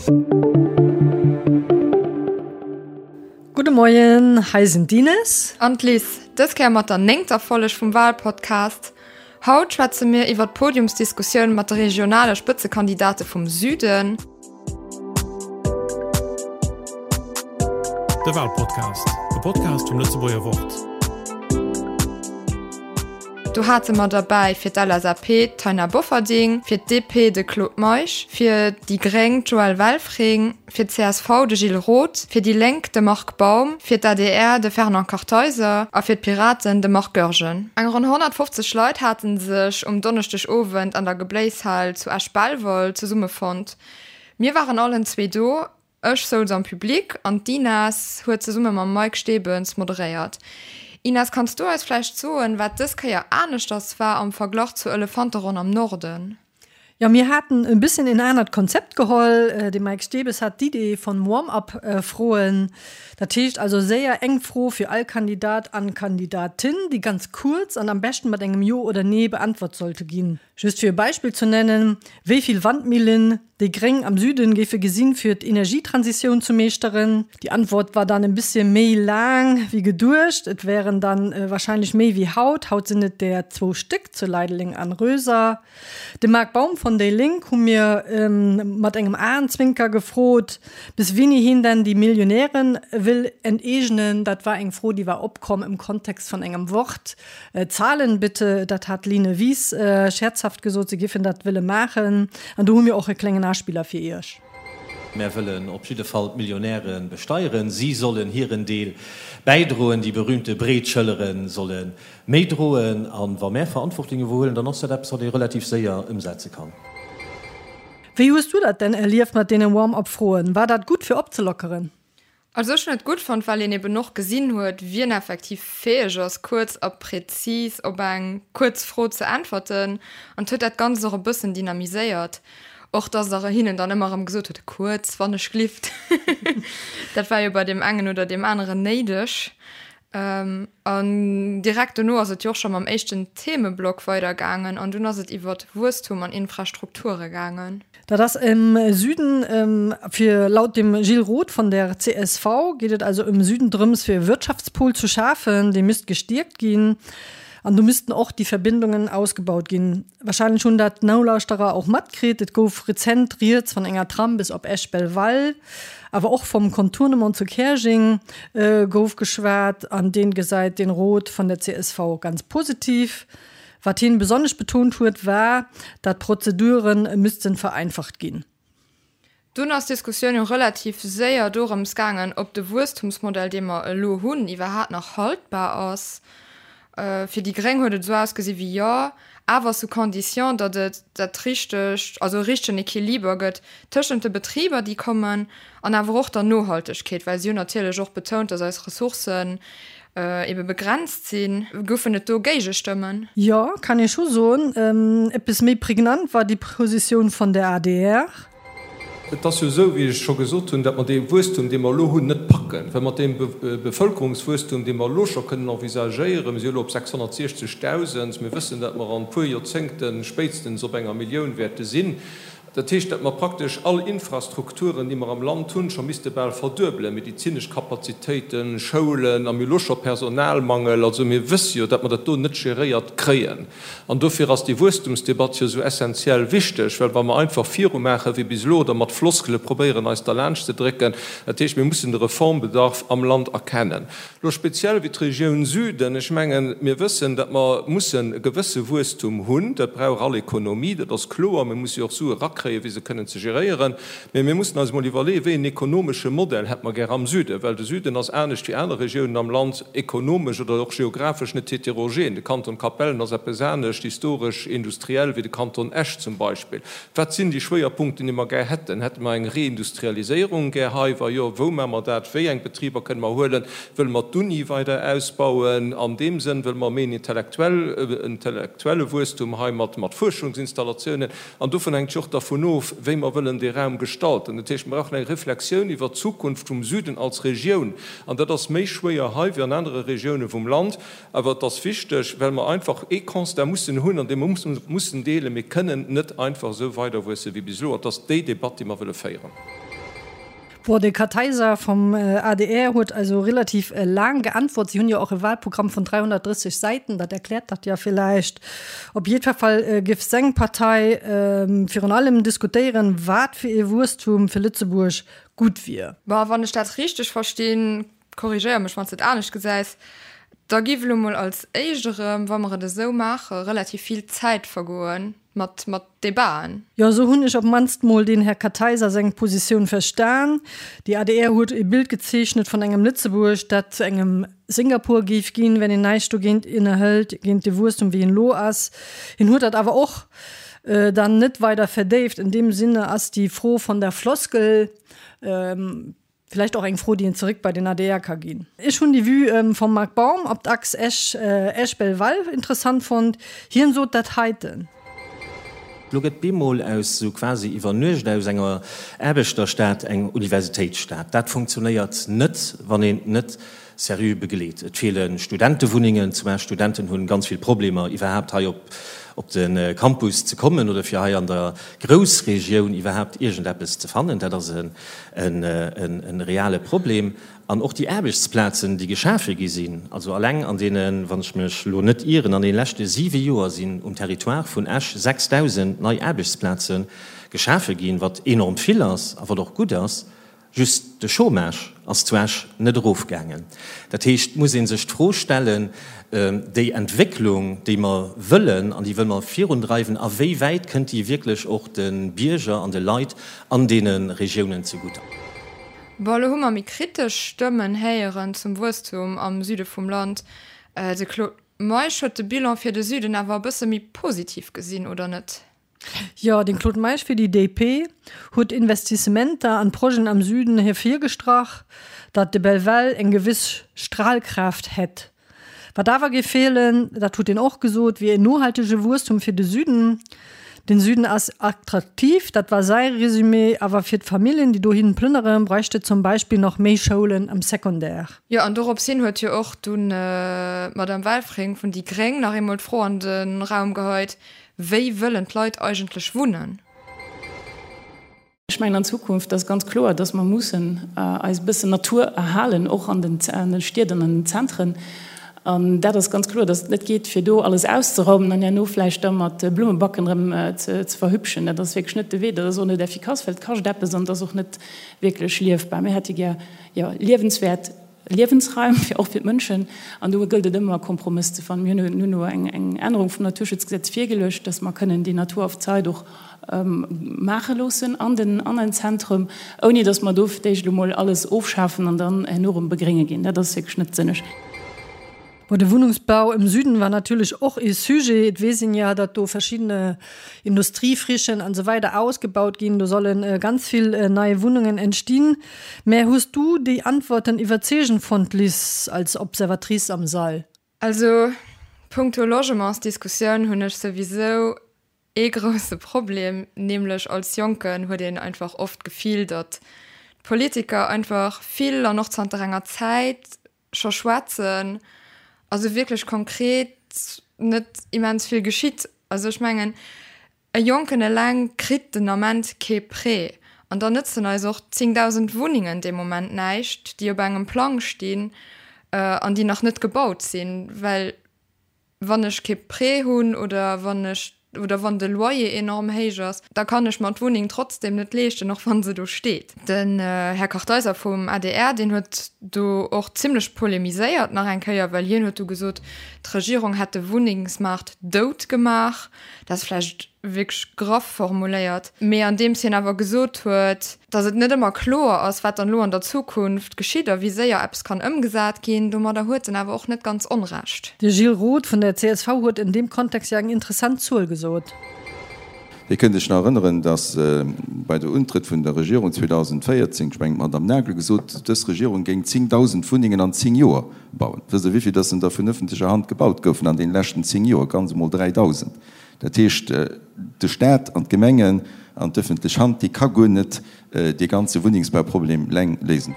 Gudde Moien, hei sinn d'Ines. An d'Liz. Dës Kéier mat der néngter Folleg vum Walpodcast. Haut schwätze mir iwwer d'Podiumsdiskussioun mat de regionale Spëtzekandidate vum Süden. De Walpodcast, e Podcast vum Lëtzebuerger Wort. Do hate mer derbäi fir d'LSAP d'Taina Bofferding, fir d'DP de Claude Meisch, fir déi Gréng d'Joëlle Welfring, fir d'CSV de Gilles Roth, fir déi Lénk de Marc Baum, fir d'ADR de Fernand Kartheiser a fir d'Piraten de Marc Goergen. Eng ronn 150 Leit hate sech um Donneschdegowend an der Gebléishal zu Esch-Belval zesummefonnt. Mir waren allen zwee do, ech souz am Public an d'Ines huet zesumme mam Mike Stebens moderéiert. Ines, kanns du eis vläicht soen, wat dës Kéier aneschters war am Verglach zur Elefanteronn am Norden? Jo, mir haten e bëssen en anert Konzept geholl. De Mike Stebes hat d'Idee von Warm-up-Froen. Dat heescht also séier eng Fro fir all Kandidat an Kandidatin, déi ganz kuerz an am beschten mat engem Jo oder Nee beantwort sollte ginn. Just fir e Beispill zu nennen, Wéi vill Wandmillen déi Gréng am Süden géife gesinn, fir d'Energietransitioun zu meeschteren? Déi Antwort war dann e bëssche méi laang wéi geduecht. Et wären dann wahrscheinlech méi wéi haut. Haut sinn et der zwou Stéck zu Leideleng an Röser. De Marc Baum von déi Lénk hu mir mat engem Aenzwinker gefrot, bis wéini hien denn déi Millionären wëll enteegnen. Dat war eng Fro, déi war opkomm im Kontext von engem Wort. Zahlen bitte, dat hat d'Line Wies scherzhaft gesot, se giffen dat wëlle maachen. An do hu mir och e klengen Aspiller fir Iech. Mär wëllen op jidde Fall d'Millionäre besteieren. Si sollen hiren Deel bäidroen. Déi berühmte breet Schëllere solle méi droen. A wa mär Verantwortung iwwerhuelen, dann ass dat eppes, wat ee relativ séier ëmsetze kann. Wéi hues du dat denn erlieft mat deene Warm-up-Froen? War dat gutt fir opzelockeren? Also ech hunn et gutt fonnt, well een eben och gesinn huet, wien effektiv fäeg ass, kuerz a präzis op eng kuerz Fro ze äntwerten. An et huet dat Ganzt och e bëssen dynamiséiert. Och dass Der hinnen dann ëmmer erëm gesot hutt, kuerz, wann ech glift. Dat war jo bei deem engen oder deem aneren néideg. An direkt dono ass et jo och scho mam éischten Themeblock weidergaangen an dunn ass et iwwert Wuesstum an Infrastrukture gaangen. Dat ass am Süden fir, laut dem Gilles Roth von der csv geet et also am Süden drëms fir e Wirtschaftspol zu schafen, dee misst gestierkt ginn an do missten och déi Verbindungen ausgebaut ginn. Wahrscheinlech hunn dat d'Nolauschterer och matkritt, et gouf rezent rieds van enger Tram bis op Esch-Belval, awer och vom Contournement zu Käerjeng gouf geschwat an deen gesäit den Roth van der csv ganz positiv. Wat hien besonnesch betont huet war, dat d'Prozeduren müssten vereinfacht ginn. Dunn ass d'Diskussioun jo relativ séier dorëms gaangen, ob de Wuesstumsmodell, dee mer elo hunn, iwwerhaat nach haltbar ass. Fir déi Gréng huet et esou ausgesi wéi jo, awer sous condition, datt et dat richtegt, also e richtegen Equiliber gëtt tëschent de Betriber, déi kommen, an awer och der Nohaltegkeet, well si hunn natierlech och betount, datt eis Ressourcen ebe begrenzt sinn. Goufen et do Géigestëmmen? Jo, kann ee scho soen. Eppes méi pregnant war déi Positioun von der adr. Et ass jo esou, wéi ech scho gesot hunn, datt mer dee Wuesstum, dee mer elo hunn, net packen, well mat deem Bevölkerungswuesstum, dee mer elo scho kënnen envisagéieren, mir si elo op 660.000, mir wëssen, datt mer an e puer Joerzéngte spéitstens op enger Millioun wäerte sinn, Dat heescht, datt mer praktesch all Infrastrukturen, déi mer am Land hunn, scho misste bal verduebelen, medezinesch Kapazitéiten, Schoulen, a mir hu lo scho Personalmangel. Also mir wësse jo, datt mer dat do net geréiert kréien. An dofir ass déi Wuesstumsdebatt jo esou essenziell wichteg, well wa mer einfach virumaache wéi bis elo oder mat Floskele probéieren eis derlaanscht ze drécken, dat heescht, mir mussen de Reformbedarf am Land erkennen. Lo speziell wéi d'Regioun Süden, ech mengen, mir wëssen, datt mer mussen e gewësse Wuesstum hunn, dat brauch all Ekonomie, dat ass kloer, mir musse jo och Sue rakréien, fir se kënnen ze geréieren, mä mir mussen eis emol iwwerleeën, wéi en ekonomesche Modell hätte mer gär am Süden, well de Süden ass anescht wéi aner Regiounen am Land ekonomesch oder och geographesch net heterogen. De Kanton Capellen ass eppes anescht historesch, industriell wéi de Kanton Esch zum Beispill. Wat sinn déi Schwéierpunkten, déi mer gär hätten? Hätte mer eng Reindustrialiséierung gär hei? Wa jo, wou maache mer dat? Wéi eng Betriber kënne mer huelen? Wëlle mer d'Uni weider ausbauen? An deem Sënn, wëlle mer méi en intellektuelle Wuesstum hei mat Fuerschungsinstallatiounen? An dovun hänkt jo och dervun of, wéi mer wëllen dee Raum gestalten. Dat heescht, mer brauchen eng Reflexioun iwwert d'Zukunft vum Süden als Regioun. An dat ass méi schwéier hei wéi an anere Regioune vum Land. Awer et ass wichteg, well mer einfach ee Constat mussen hunn, an dee mer mussen deelen, Mir kënnen net einfach esou weiderwuesse wéi bis elo. An et ass déi Debatt, déi mer wëlle féieren. Bon, de Kartheiser vum adr huet also relativ laang geantwort. Si hunn jo och e Wahlprogramm vun 330 Säiten, dat erkläert dat ja villäicht. Op jiddwer Fall géif seng Partei virun allem diskutéieren, wat fir ee Wuesstum fir Lëtzebuerg gutt wier. Bon, wann ech dat richteg verstinn, korrigéier mech wann s de et anescht gesäis, da giff elo mol als éischt erëm, wa mer et esou maachen, relativ vill Zäit vergoen mat mat Debaten. Jo, esou hunn ech op mannst mol den Här Kartheiser seng Positioun verstan. Déi adr huet e Bild gezeechnet vun engem Lëtzebuerg, dat zu engem Singapur géif ginn, wenn een näischt dogéint ënnerhëlt, géint de Wuesstum wéi en elo ass. Hien huet dat awer och dann net weider verdéift. In dem Sinne ass déi Fro von der Floskel Villäicht och eng Fro, déi een zeréck bei den adr ka ginn. Ech hunn déi Vue vum Marc Baum op d'Achs Esch, Esch-Belval interessant fonnt. Hien sot dat heiten. Lo gëtt bemol aus sou quasi iwwer Nuecht aus enger Aarbechterstad eng Universitéitsstad. Dat funktionéiert net, wann een net seriö begleet. Et feele Studentewunnengen, zumal Studenten hunn ganz vill Problemer iwwerhaapt hei op op de Campus ze kommen oder fir hei an der Groussregioun iwwerhaapt iergendeppes ze fannen. Dat ass e reale Problem. An och déi Aarbechtsplazen, déi geschafe gi sinn, also alleng an deene, wann ech mech elo net ieren, an deene leschte siwe Joer sinn um Territoire vun Esch 6.000 nei Aarbechtsplaze geschafe ginn, wat enorm vill ass a wat och gutt ass. Just de Chômage ass zu Esch net erofgaangen. Dat heescht, et muss ee sech d'Fro stellen, déi Entwécklung, déi mer wëllen an déi wëlle mer virundreiwen, a wéi wäit kënnt déi wierklech och de Bierger an de Leit an deene Regiounen zegutt? Bon, elo hu mer méi kritesch Stëmmen héieren zum Wuesstum am Süde vum Land. De Claude Meisch huet de Bilan fir de Süden awer e bësse méi positiv gesinn, oder net? Jo, den Claude Meisch fir déi DP huet Investissementer an Projeten am Süden hervirgestrach, datt de Belval eng gewiss Strahlkraft hätt. Wat awer géif feelen, dat huet en och gesot, wier en nohaltege Wuesstum fir de Süden. Den Süden ass attraktiv, dat war säi Resumé, awer fir d'Familljen, déi dohin plënnere, bräicht et zum Beispill nach méi Schoulen am Secondaire. Jo, an dorops hin huet jo och dunn d'Madame Welfring vun déi gréng nach eemol d'Fro an de Raum geheit, Wéi wëllen d'Leit eigentlech wunnen? Ech mengen an Zukunft ass ganz kloer, dass mer mussen eis e bëssen Natur erhalen, och an den Stied an an den Zentren. An dat ass ganz kloer, dass et net geet, fir do alles auszeraumen an herno vläicht da mat Blummebacken erëm ze verhübschen. Dat ass wierklech net de Wee. Dat ass och net effikass, well et kascht eppes an et ass och net wierklech liefbar. Mir hätte gär, jo, liewenswäert Liewensraim, fir och fir d'Mënschen. An do gëllt et ëmmer, e Kompromëss ze fannen. Mir hunn elo eng Ännerung vum Naturschutzgesetz virgeluecht, dass mer kënnen déi Natur auf Zeit och maache loossen an den an den Zentrum, ouni dass mer do fir d'éischt elo mol alles ofschafen an dann herno erëm begrénge ginn. Dat ass wierklech net sënneg. Bon, de Wunnungsbau im Süden war natierlech och ee Sujet. Et weess een ja, datt do verschiddene Industriefrichen an esou weider ausgebaut ginn. Do solle ganz vill nei Wunnungen entstinn. Mä hues du déi Antworten iwwerzeegend fonnt, Liz, als Observatrice am Sall? Also punkto Logementsdiskussioun hunn ech souwisou ee grousse Problem, nämlech als Jonken huet een einfach oft d'Gefill, datt d'Politiker einfach vill an och zanter enger Zäit scho schwätzen, also wierklech konkret net immens vill geschitt. Also ech mengen, e Jonken eleng kritt den Ament kee Prêt an da nëtzen eis och 10.000 Wunnengen dee Moment näischt, déi op engem Plang stinn an déi nach net gebaut sinn, well Wann ech kee Prêt hunn oder wann ech oder wann de Loyer enorm héich ass, da kann ech mer d'Wunneng trotzdem net leeschten, och wann se do steet. Den Här Kartheiser vum adr, deen huet do och zimlech polemiséiert nach eng Kéier, well hien huet du gesot, d'Regierung hätt de Wunnengsmaart dout gemaach. Dat ass vläicht wierklech graff formuléiert, mee andeems hien awer gesot huet, datt et net ëmmer kloer ass, wat dann elo an der Zukunft geschitt a wéi séier eppes kann ëmgesat ginn, domadder huet en awer och net ganz Onrecht. De Gilles Roth vun der csv huet en deem Kontext jo eng interessant Zuel gesot. Dir kënnt Iech nach erënneren, datt bei der Untrëtt vun der Regierung 2014, ech mengen d'Madame Nagel gesot, dës Regierung géing 10.000 Wunnengen an 10 Joer bauen. Wësst Der, wéivill datt en der vun ëffentlecher Hand gebaut goufen an deene leschten 10 Joer? Ganz emol 3.000. Dat heescht, de Staat an d'Gemengen an d'ëffentlech Hand, déi ka guer net dee ganze Wunnengsbauproblem leng léisen.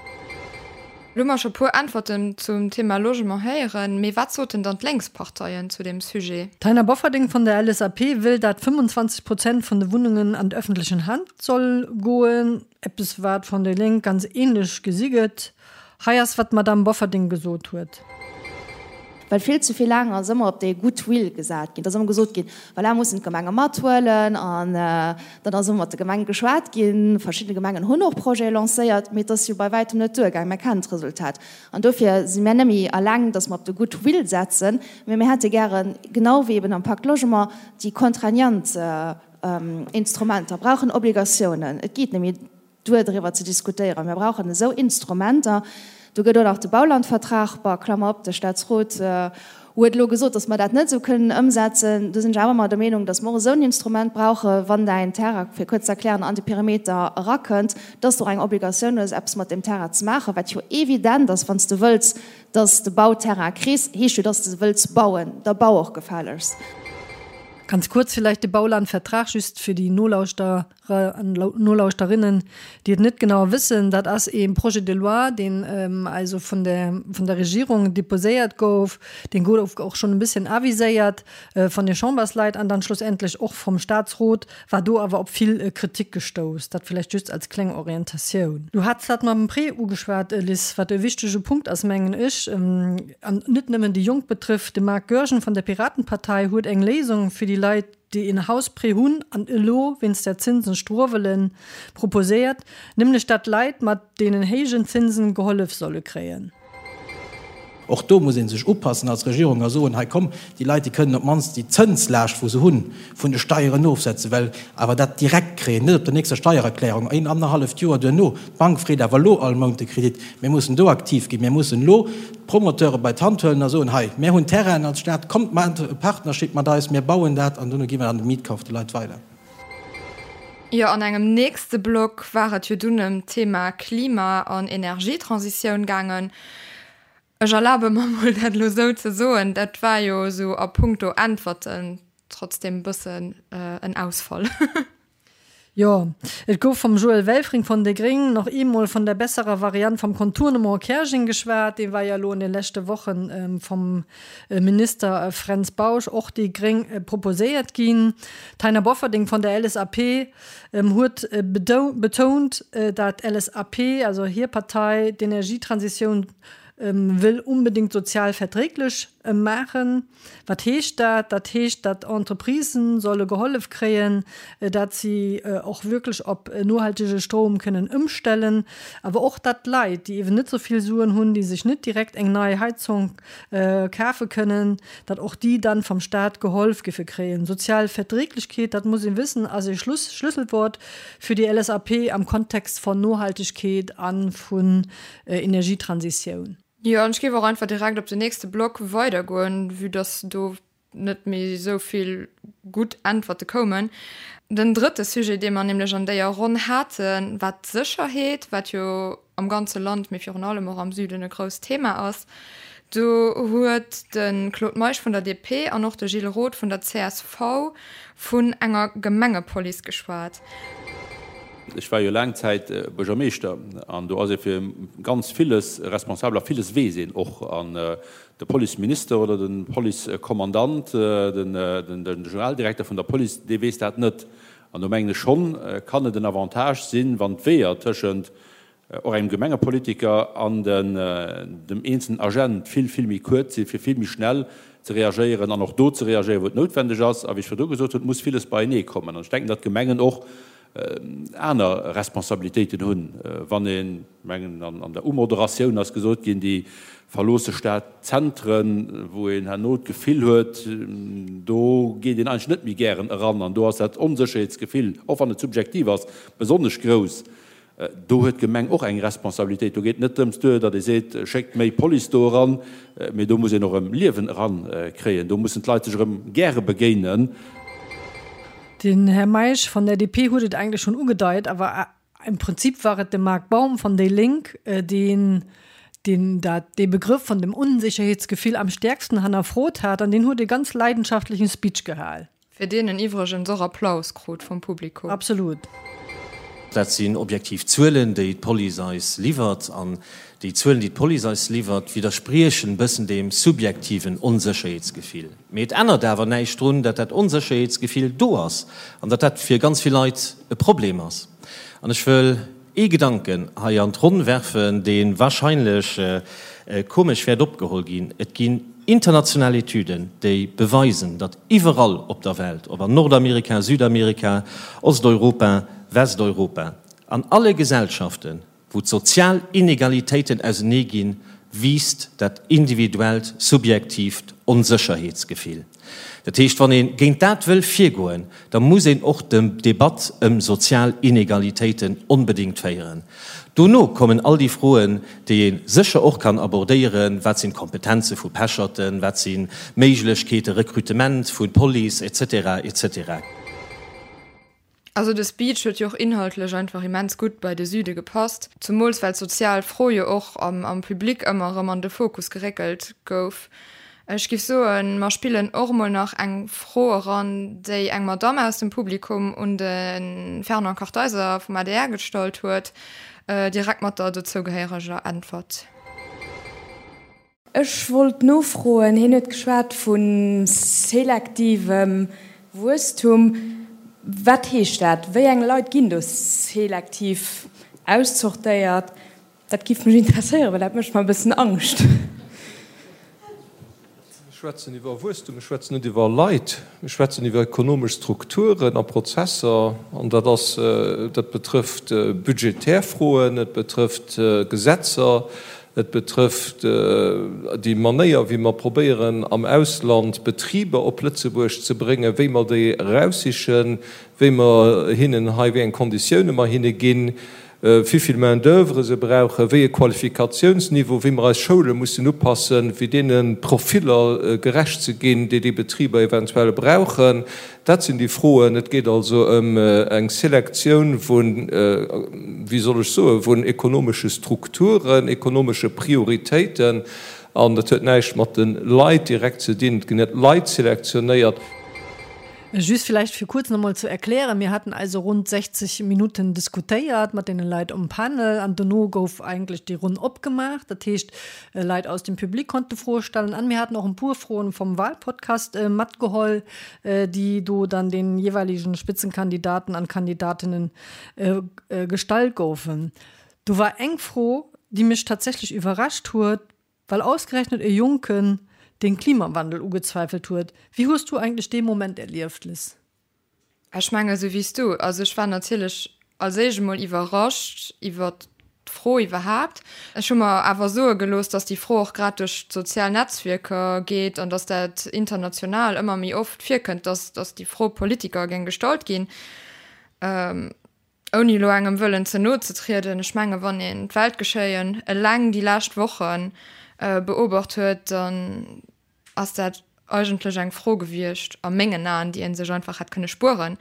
Lo hu mer scho puer Äntwerten zum Thema Logement héieren, mee wat soten dann d'Lénksparteien zu deem Sujet? D'Taina Bofferding vun der LSAP wëll dat 25 Prozent vun de Wunnungen an d'ëffentlechen Hand soll goen, eppes wat vun déi Lénk ganz ähnlech gesi gëtt. Hei ass wat d'Madame Bofferding gesot huet. Well vill ze vill laang ass ëmmer op dee Goodwill gesat ginn. Et ass ëmmer gesot ginn, voilà, mussen d'Gemenge mathuelen. An dann ass ëmmer mat de Gemenge geschwat ginn. Verschidde Gemengen hunn och Projete lancéiert, mee et ass jo bei wäitem net duergaang. Mir kennen d'Resultat. An dofir si mir net méi eleng, datt mer op de Goodwill setzen, mee mir hätte gären, genau wéi eben am Pacte Logement, déi contraignant Instrumenter. Mir brauchen Obligatiounen. Et geet net méi. Duer driwwer ze diskutéieren. Mir brauchen esou Instrumenter. Do gëtt och nach de Baulandvertrag, bah, Klammer op, de Statsrot huet elo gesot, datt mer dat net esou kënnen ëmsetzen. Do sinn ech awer ëmmer der Meenung, datt mer och esou en Instrument brauchen, wann däin Terrain, fir kuerz ze erklären, an de Perimeter erakënnt, datt s de och eng Obligatioun hues, eppes mat deem Terrain ze maachen, wat jo evident ass, wann s de wëlls, datt s de Bauterrain kriss, heescht jo, datt s de wëlls bauen. Da bau och gefällegst. Ganz kuerz villäicht de Baulandvertrag, just fir déi Nolauschterer an Nolauschterinnen, déi et net genau wëssen, dat ass ee Projet de loi, deen also vun der, vun der Regierung deposéiert gouf, deen gouf och schonn e bësschen aviséiert von de Chambersleit an dann schlussendlech och vom Statsrot, war do awer op vill Kritik gestouss. Dat villäicht just als kleng Orientatioun. Du hats dat mam Prêt ugeschwat, Liz, wat e wichtege Punkt ass, mengen ech, an net nëmmen déi Jonk betrifft. De Marc Goergen vun der Piratenpartei huet eng Léisung fir déi Leit, déi een Hausprêt hunn an elo wéinst der Zinsen struewelen, proposéiert, nämlech dat Leit mat deenen héijen Zinsen gehollef solle kréien. Och do muss ee sech upassen als Regierung a soen, hei komm, déi Leit, déi kënnen op d'mannst déi Zënslaascht, wou se hunn, vun de Steieren ofsetzen, well awer dat direkt kréien, net op der nächster Steiererklärung, een annerhalleft Joer duerno. D'Bank freet awer elo all Mount de Kredit. Mir mussen do aktiv ginn. Mir mussen elo d'Promoteure bei d'Hand huelen a soen, hei, mir hunn Terrainen als Stad, kommt maacht e Partnership mat eis, mir bauen dat an duerno gi mer dann de Mietkauf de Leit weider. Jo, an engem nächste Block war et jo dunn ëm d'Thema Klima an Energietransitioun gaangen. Ech erlabe mer mol dat elo esou ze soen, dat war jo esou a puncto Äntwerten trotzdem e bëssen en Ausfall. Jo, et gouf vum Joël Welfring vun déi Gréng nach eemol vun der besserer Variant vum Contournement Käerjeng geschwat. Dee war jo elo an de leschte Woche vum Minister Fränz Bausch, och déi Gréng, proposéiert ginn. D'Taina Bofferding vun der LSAP huet betount, dat d'LSAP, also hir Partei, d'Energietransitioun wëll unbedéngt sozial verträglech maachen. Wat heescht dat? Dat heescht, datt Entreprisen solle gehollef kréien, datt si och wierklech op nohaltege Stroum kënnen ëmstellen, awer och datt Leit, déi eeben net esou vill Suen hunn, déi sech net direkt eng nei Heizung kafe kënnen, datt och déi dann vom Staat geholf giffe kréien. Sozial Verträglechkeet, dat muss ee wëssen, ass ee Schlüsselwort fir déi LSAP am Kontext von Nohaltegkeet a vun Energietransitioun. Jo, an ech géif och einfach direkt op den nächste Block weidergoen, vue dass do net méi esou vill gutt Äntwerte koumen. Den drëtte Sujet, dee mer nämlech an déier Ronn haten, war d'Sécherheet, wat jo am ganze Land, mee virun allem och am Süden e grousst Thema ass. Do huet de Claude Meisch vun der DP an och de Gilles Roth vun der csv vun enger Gemengepolice geschwat. Ech war jo laang Zäit Buergermeeschter an do ass ee fir ganz villes responsabel a villes weess een och. An de Policeminister oder de Policekommandant, den Generaldirekter vun der Police, dee weess dat net. An do mengen ech schonn, kann et en Avantage sinn, wann d'Weeër tëschent och engem Gemengepolitiker an dem eenzelnen Agent vill, vill méi kuerz sinn, fir vill méi schnell ze reagéieren an och do ze reagéieren, wou et noutwendeg ass. A wéi ech virdru gesot hunn, et muss villes beienee kommen. An ech denken, datt d'Gemengen och aner Responsabilitéiten hunn, wann een, ech mengen, an der Umoderatioun ass gesot ginn, déi verloosse Stadzentren, wou een herno d'Gefill huet, do geet een eigentlech net méi gären eran an do ass dat Onsécherheetsgefill, och wann et subjektiv ass, besonnesch grouss. Do huet d'Gemeng och eng Responsabilitéit. Do geet et net drëms duer, datt ee seet, schéckt méi Police do eran, mee do muss een och erëm Liewen erankréien. Do mussen d'Leit sech erëm gäre begéinen. Den Här Meisch von der DP huet et eigentlech schonn ugedeit, awer im Prinzip war et de Marc Baum von déi Lénk, deen deen dat dee Begrëff von dem Unsicherheetsgefill am stärksten hannerfrot hat an deen huet e ganz leidenschaftlichen Speech gehal. Fir deen en iwwregens och Applaus krut vum Publikum. Absolut. Dat sinn objektiv Zuelen, déi d'Police eis liwwert. An déi Zuelen, déi d'Police eis liwwert, widderspriechen e bëssen deem subjektiven Onsécherheetsgefill. Mee et ännert awer näischt drun, datt dat Onsécherheetsgefill do ass an datt dat fir ganz vill Leit e Problem ass. An ech wëll ee Gedanken hei an d'Ronn werfen, dee wahrscheinlech komesch wäert opgeholl ginn, Et ginn international Etüden, déi beweisen, datt iwwerall op der Welt, ob an Nordamerika, Südamerika, Osteuropa, Westeuropa, an alle Gesellschaften, wou d'sozial Inegalitéiten ausenee ginn, wiisst dat individuellt, subjektiivt Onsécherheetsgefill. Dat heescht, wann ee géint dat wëll virgoen, da muss een och d'Debatt ëm sozial Inegalitéiten onbedéngt féieren. Dono kommen all déi Froen, déi ee sécher och kann abordéieren, Wat sinn d'Kompetenze vu Pecherten, wat si Méiglechkeete, Rekrutement vu Police, et cetera, et cetera. Also de Speech huet jo och inhaltlech einfach immens gutt bei de Süde gepasst, zumools well d'sozial Fro jo och am Public ëmmer erëm an de Fokus geréckelt gouf. Ech giff soen, mer spillen och emol nach eng Fro eran, déi eng Madamm aus dem Publikum un de Fernand Kartheiser vum adr gestallt huet, direkt mat der dozougehéiereger Äntwert. Ech wollt nofroen, hien huet geschwat vu selektivem Wuesstum. Wat heescht dat? Wéi eng Leit ginn do selektiv auszortéiert? Dat giff mech interesséieren, well dat mécht mer e bëssen Angscht. Mir schwätzen iwwer Wuesstum, mir schwätzen net iwwer Leit. Mir schwätzen iwwer ekonomesch Strukturen a Prozesser, an dat ass, dat betrëfft budgetär Froen, et betrëfft Gesetzer, et betrëfft déi Manéier, wéi mer probéieren am Ausland Betriber op Lëtzebuerg ze bréngen, wéi mer déi eraussichen, wéi mer hinnen hei, wéi eng Konditioune mer hinne ginn, wéivill Main d'oeuvre se brauchen, wéi e Qualifikationsniveau, wéi mer eis Schoule mussen upassen, fir deene Profiller gerecht ze ginn, déi déi Betriber eventuell brauchen. Dat sinn déi Froen. Et geet also ëm eng Selektioun vun, wéi soll ech soen, vun ekonomesche Strukturen, ekonomesche Prioritéiten. An dat huet näischt mat de Leit direkt ze dinn. Et ginn net Leit selektionéiert. Just villäicht fir kuerz nach emol ze erklären, Mir haten also rund 60 Minutten diskutéiert mat deene Leit um Panel an dono gouf eigentlech déi Ronn opgemaach. Dat heescht, Leit aus dem Public konnte Froe stellen an mir haten och en puer Froen vom Wahlpodcast matgeholl, déi do dann den jeweiligen Spitzenkandidaten an Kandidatinnen gestallt goufen. Do war eng Fro, déi mech tatsächlech iwwerrascht huet, Well ausgerechnet e Jonken den Klimawandel ugezweifelt huet. Wéi hues du eigentlech dee Moment erlieft, Liz? Ech mengen esou wéi s du. Also ech war natierlech als éischt emol iwwerrascht iwwert d'Fro iwwerhaapt. Ech hu mer awer soe gelooss, datt déi Fro och grad duerch d'sozial Netzwierker geet an datt dat international ëmmer méi oft virkënnt, datt datt déi Fro Politiker géing gestallt ginn. Ouni elo engem wëllen ze no ze trieden, ech menge wann een d'Weltgeschéien eleng déi lescht Woche beobacht huet, dann ass dat eigentlech eng Fro gewiescht, a mengen Aen, déi ee sech einfach hätt kënne spueren.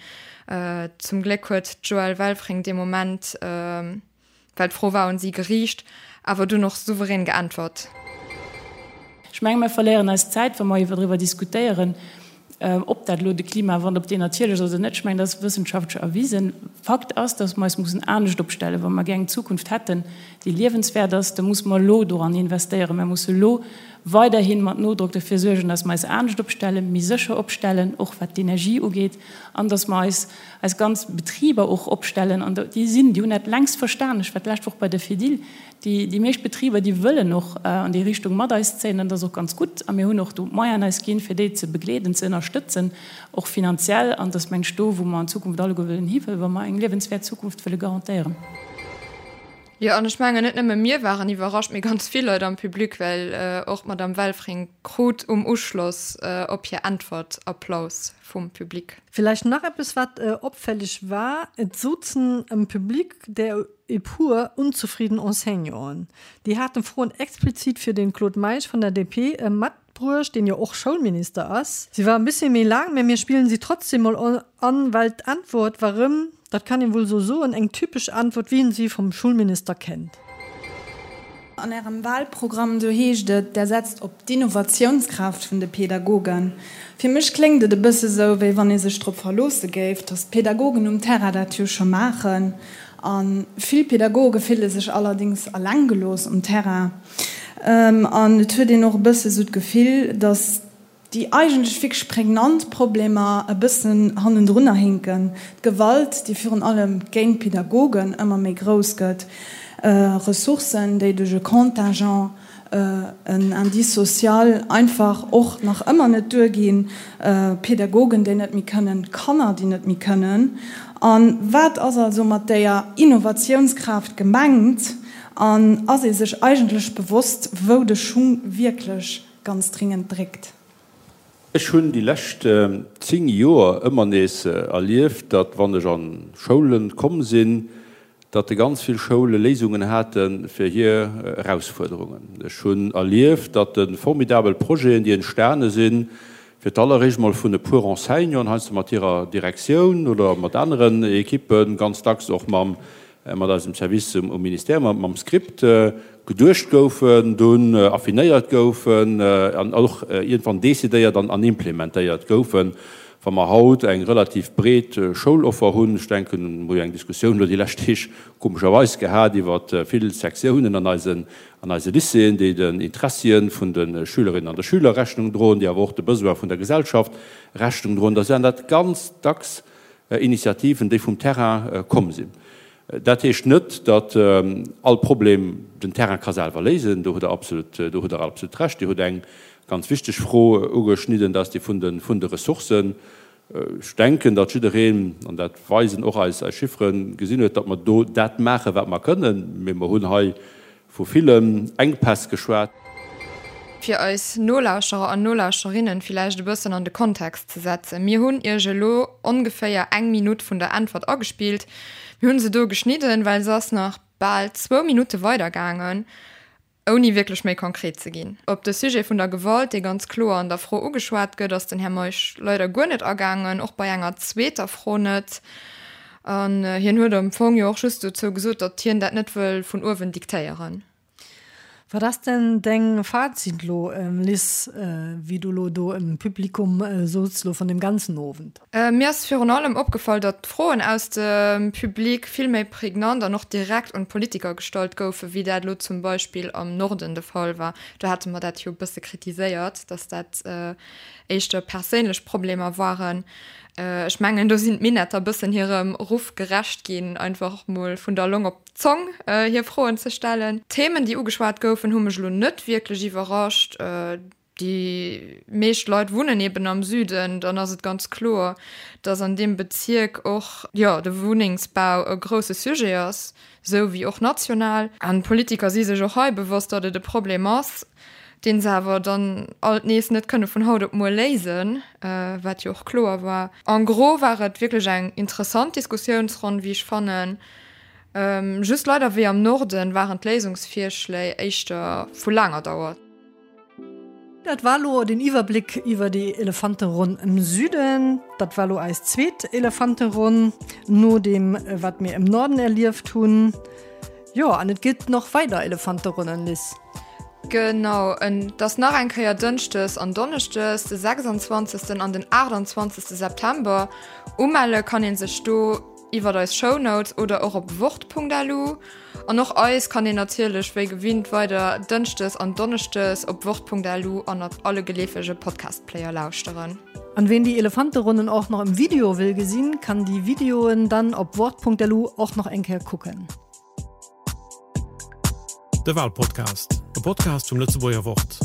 Zum Gléck huet d'Joëlle Welfring dee Moment, well d'Fro war un si geriicht, awer dunn och souverän geäntwert. Ech menge mir verléieren eis Zäit, wa mer iwwer driwwer diskutéieren, ob dat elo de Klimawandel, ob deen natierlech ass oder net. Ech mengen, dat ass wëssenschaftlech erwisen. Fakt ass, datt mer eis mussen anescht opstellen. Wa mer gär eng Zukunft hätten, déi liewenswäert ass, da musse mer elo doran investéieren. Mer musse elo weiderhi mat Nodrock derfir suergen, datt mer eis anescht opstellen, méi sécher opstellen, och wat d'Energie ugeet, an datt mer eis eis ganz Betriber och opstellen. An déi sinn, déi hunn dat längst verstan. Ech war d'lescht Woch bei der Fedil. Déi, déi meescht Betriber, déi wëllen och an déi Richtung mat eis zéien, an dat ass och ganz gutt. A mir hunn och do d'Moyenen eis ginn, fir déi ze begleeden, ze ënnerstëtzen, och finanziell. An dat ass, meng ech, do, wou mer an Zukunft alleguer wëllen hiwëllen, wa mer eng liewenswäert Zukunft wëlle garantéieren. Jo, an ech mengen, net nëmme mir waren iwwerrascht, mee ganz vill Leit am Public, well och d'Madame Welfring krut um Uschloss op hir Äntwert Applaus vum Public. Villäicht nach eppes, wat opfälleg war, Et souzen am Public der e puer unzefrieden Enseignanten. Déi haten Froen explizit fir den Claude Meisch vun der DP matbruecht, deen jo och Schoulminister ass. Si war e bëssi méi laang, mä mir spillen si trotzdem mol an, well d'Antwort war rëm, dat kann een wuel sou soen, eng typesch Antwort, wéi een si vum Schulminister kennt. An Ärem Wahlprogramm, do heescht et, Der setzt op d'Innovatiounskraaft vun de Pedagogen. Fir mech kléngt et e bësse sou, wéi wann ee sech drop verloosse géif, datt d'Pedagogen um Terrain dat jo scho maachen. A vill Pedagoge fille sech allerdéngs alleng gelooss um Terrain. An et huet een och e bësse sou d'Gefill, datt déi eigentlech wierklech prägnant Problemer e bëssen hannendrunner hinken, d'Gewalt, déi virun allem géint d'Pedagogen ëmmer méi grouss gëtt, Ressourcen, déi duerch e Contingent, en Indice social einfach och nach ëmmer net duerginn, Pedagogen, déi net méi kënnen, Kanner, déi net méi kënnen. A wat ass also mat déier Innovatiounskraaft gemengt? An ass ee sech eigentlech bewosst, wou de Schung wierklech ganz dringend dréckt? Ech hunn déi lescht 10 Joer ëmmer nees erlieft, datt wann ech an Schoulen komm sinn, datt ganz vill Schoule Léisungen hate fir hir Erausfuerderungen. Ech hunn erlieft, datt formidabel Projeten, déi entstane sinn, fir d'alleréischt mol vun e puer Enseignanten, heiansdo mat hirer Direktioun oder mat aneren Ekippen, ganz dacks och mam mat eisem Service um Ministère, mam Script, geduecht goufen, dunn affinéiert goufen an och iergendwann decidéiert an implementéiert goufen. Wa mer haut eng relativ breet Schouloffer hunn, ech denken, mer hu jo eng Diskussioun elo déi lescht Deeg komescherweis gehat iwwer vill Sektiounen an eisen, an eise Lycéeën, déi den Interessien vun de Schülerinnen an de Schüler Rechnung droen, déi awer och de Besoin vun der Gesellschaft Rechnung droen, da sinn dat ganz dacks Initiativen, déi vum Terrain komm sinn. Dat heescht net, datt all Problem den Terrain ka selwer léisen. Do hutt Der absolut, do hutt Der absolut Recht. Dir hutt eng ganz wichteg Fro ugeschnidden, dat ass déi vun de, vun de Ressourcen. Ech denken, datt jiddereen, an dat weisen och eis Chifferen, gesinn huet, datt mer do dat maachen, wat mer kënnen. Mee mer hunn hei Vu villen Enkpäss geschwat. Fir eis Nolauschterer an Nolauschterinnen villäicht e bëssen an de Kontext ze setzen, Mir hunn Iech elo ongeféier eng Minutt vun der Äntwert agespillt. Mir hunn se do geschnidden, well se ass nach bal zwou Minutte weidergaangen, ouni wierklech méi konkret ze ginn. Op de Sujet vun der Gewalt, dee ganz kloer an der Fro ugeschwat gëtt, ass den Här Meisch leider guer net agaangen, och bei enger zweeter Fro net. An hien huet am Fong jo och just dozou gesot, datt hien dat net wëll vun uewen diktéieren. Wat ass denn deng Fazit lo, Liz, wéi du lo do im Publikum souz lo vun dem ganzen Owend? Mir ass virun allem opgefall, datt d'Froen aus dem Public vill méi prägnant an och direkt un d'Politiker gestallt goufen, wéi dat lo zum Beispill am Norden de Fall war. Do hate mer dat jo e bësse kritiséiert, datt dat éischter perséinlech Problemer waren. Ech mengen, do sinn d'Minetter bëssen hirem Ruff gerecht ginn, einfach mol vun der Long op d'Zong hir Froen ze stellen. D'Themen, déi ugeschwat goufen, hu mech elo net wierklech iwwerrascht. Déi meescht Leit wunnen eben am Süden, dann ass et ganz kloer, datt an deem Bezierk och, jo, de Wunnengsbau e grousse Sujet ass, esou wéi och national. An d'Politiker si sech och hei bewosst, datt et e Problem ass. deen se awer dann alt nees net kënne vun haut op muer léisen, wat jo och kloer war. En gros war et wierklech eng interessant Diskussiounsronn, wéi ech fannen. Just leider, wéi am Norden, waren d'Léisungsvirschléi éischter vu laanger Dauer. Dat war lo den Iwwerbléck iwwer déi Elefanteronn im Süden. Dat war lo eis zweet Elefanteronn no deem, wat mir im Norden erlieft hunn. Jo, an et gëtt nach weider Elefanteronnen, Liz. Genau, et ass nach eng Kéier Dënschdes an Donneschdes, de 26. an den 28. September. Umelle kann ee sech do iwwert eis Shownotes oder och op wort.lu. An och eis kann een natierlech wéi gewinnt weider Dënschdes an Donneschdes op wort.lu an op alle geleefege Podcast-Player lauschteren. An ween déi Elefanteronnen och nach im Video wëll gesinn, kann déi Videoen dann op wort.lu och nach eng Kéier kucken. De Walpodcast, e Podcast vum Lëtzebuerger Wort.